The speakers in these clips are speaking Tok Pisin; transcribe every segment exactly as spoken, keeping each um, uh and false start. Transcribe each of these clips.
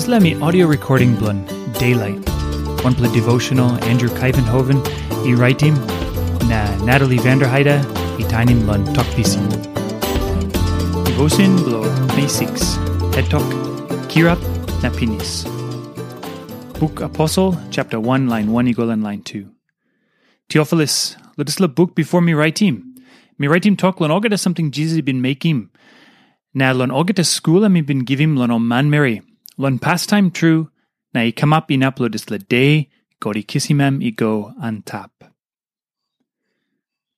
Dispela mi audio recording bilong Daylight, wanpela devotional Andrew Kaivenhoven i raitim, na Natalie Vanderheide i tainim long Tok Pisin. Devotion bilong May six, het tok, Kirap na Pinis. Buk Aposel, chapter one, line one i go long line two. Teofilus, long dispela buk bipo mi raitim, mi raitim tok long olgeta samting Jisas i bin mekim, na long olgeta skul em i bin givim long ol manmeri, long pastaim tru, na i kamap inap long dispela de God i kisim em i go antap.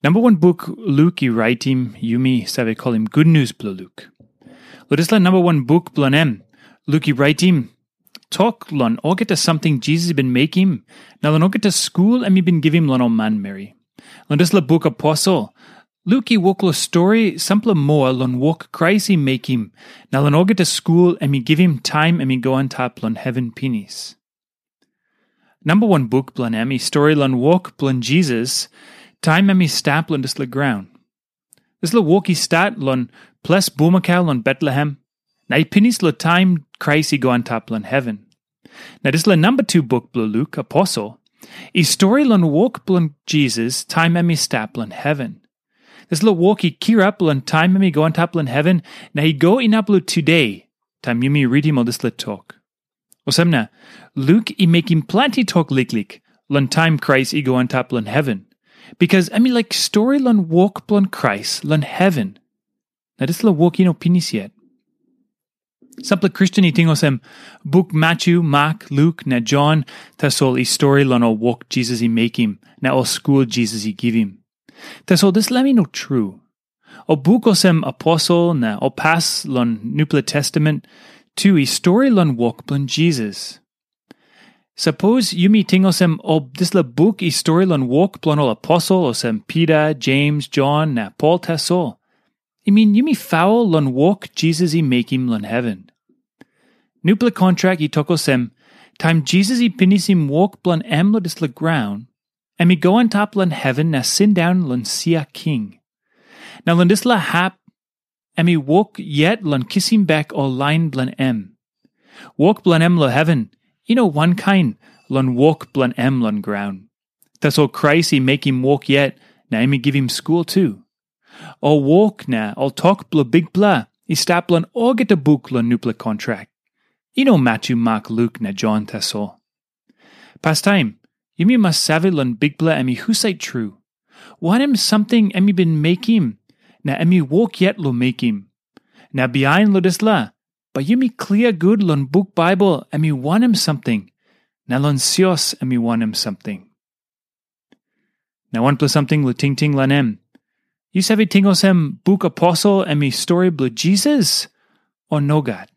Namba wan buk Luk i raitim, yumi save kolim Gutnius bilong Luk. Long dispela namba wan buk bilong em, Luk i raitim tok long olgeta samting Jisas i bin mekim, na long olgeta skul em i bin givim long ol manmeri. Long dispela buk Aposel, Luk i wok long stori sampela moa long wok Krais i mekim, na long olgeta skul em i givim taim em i go antap long heven pinis. Namba wan buk bilong em i stori long wok bilong Jisas, taim em i stap long dispela graun. Dispela wok i stat long ples bulmakau long Betlehem, na i pinis long taim Krais i go antap long heven. Na dispela namba tu buk bilong Luk, Aposel, i stori long wok bilong Jisas taim em i stap long heven. Dispela wok i kirap long taim em i go antap long heven, na i go inap long tude, taim yumi ritim ol dispela tok. Olsem na, Luk i mekim planti tok liklik long taim Krais i go antap long heven, bikas em i laik stori long wok bilong Krais long heven. Na dispela wok i no pinis yet. Sampela Kristen i ting olsem, buk Matyu, Mak, Luk, na Jon, tasol i stori long ol wok Jisas i mekim, na ol skul Jisas i givim. Tasol dispela em i no tru. Ol buk olsem Aposel na ol pas long Nupela Testament tu i stori long wok bilong Jisas. Sapos yumi ting olsem ol dispela buk i stori long wok bilong ol aposel olsem Pita, Jems, Jon, na Pol tasol, i min yumi faul long wok Jisas i mekim long heven. Nupela kontrak i tok olsem, taim Jisas i pinisim wok bilong em long dispela graun, em i go antap long heven na sindaun long sia king. Na long dispela hap, em i wok yet long kisim bek ol lain bilong em. Wok bilong em long heven i no wankain long wok bilong em long graun. Tasol Krais i mekim wok yet, na em i givim skul tu. Ol wok na ol tok bilong Bikpela i stap long olgeta buk long nupela kontrak. I no Matyu, Mak, Luk, na Jon tasol. Pastaim, yumi mas save long Bikpela em i husat tru. Wanem samting em i bin mekim, na em i wok yet long mekim. Na bihain long dispela, bai yumi klia gut long buk Baibel em i wanem samting, na long sios em i wanem samting. Na wanpela samting long tingting long em. Yu save ting olsem buk Aposel em i stori bilong Jisas, o nogat?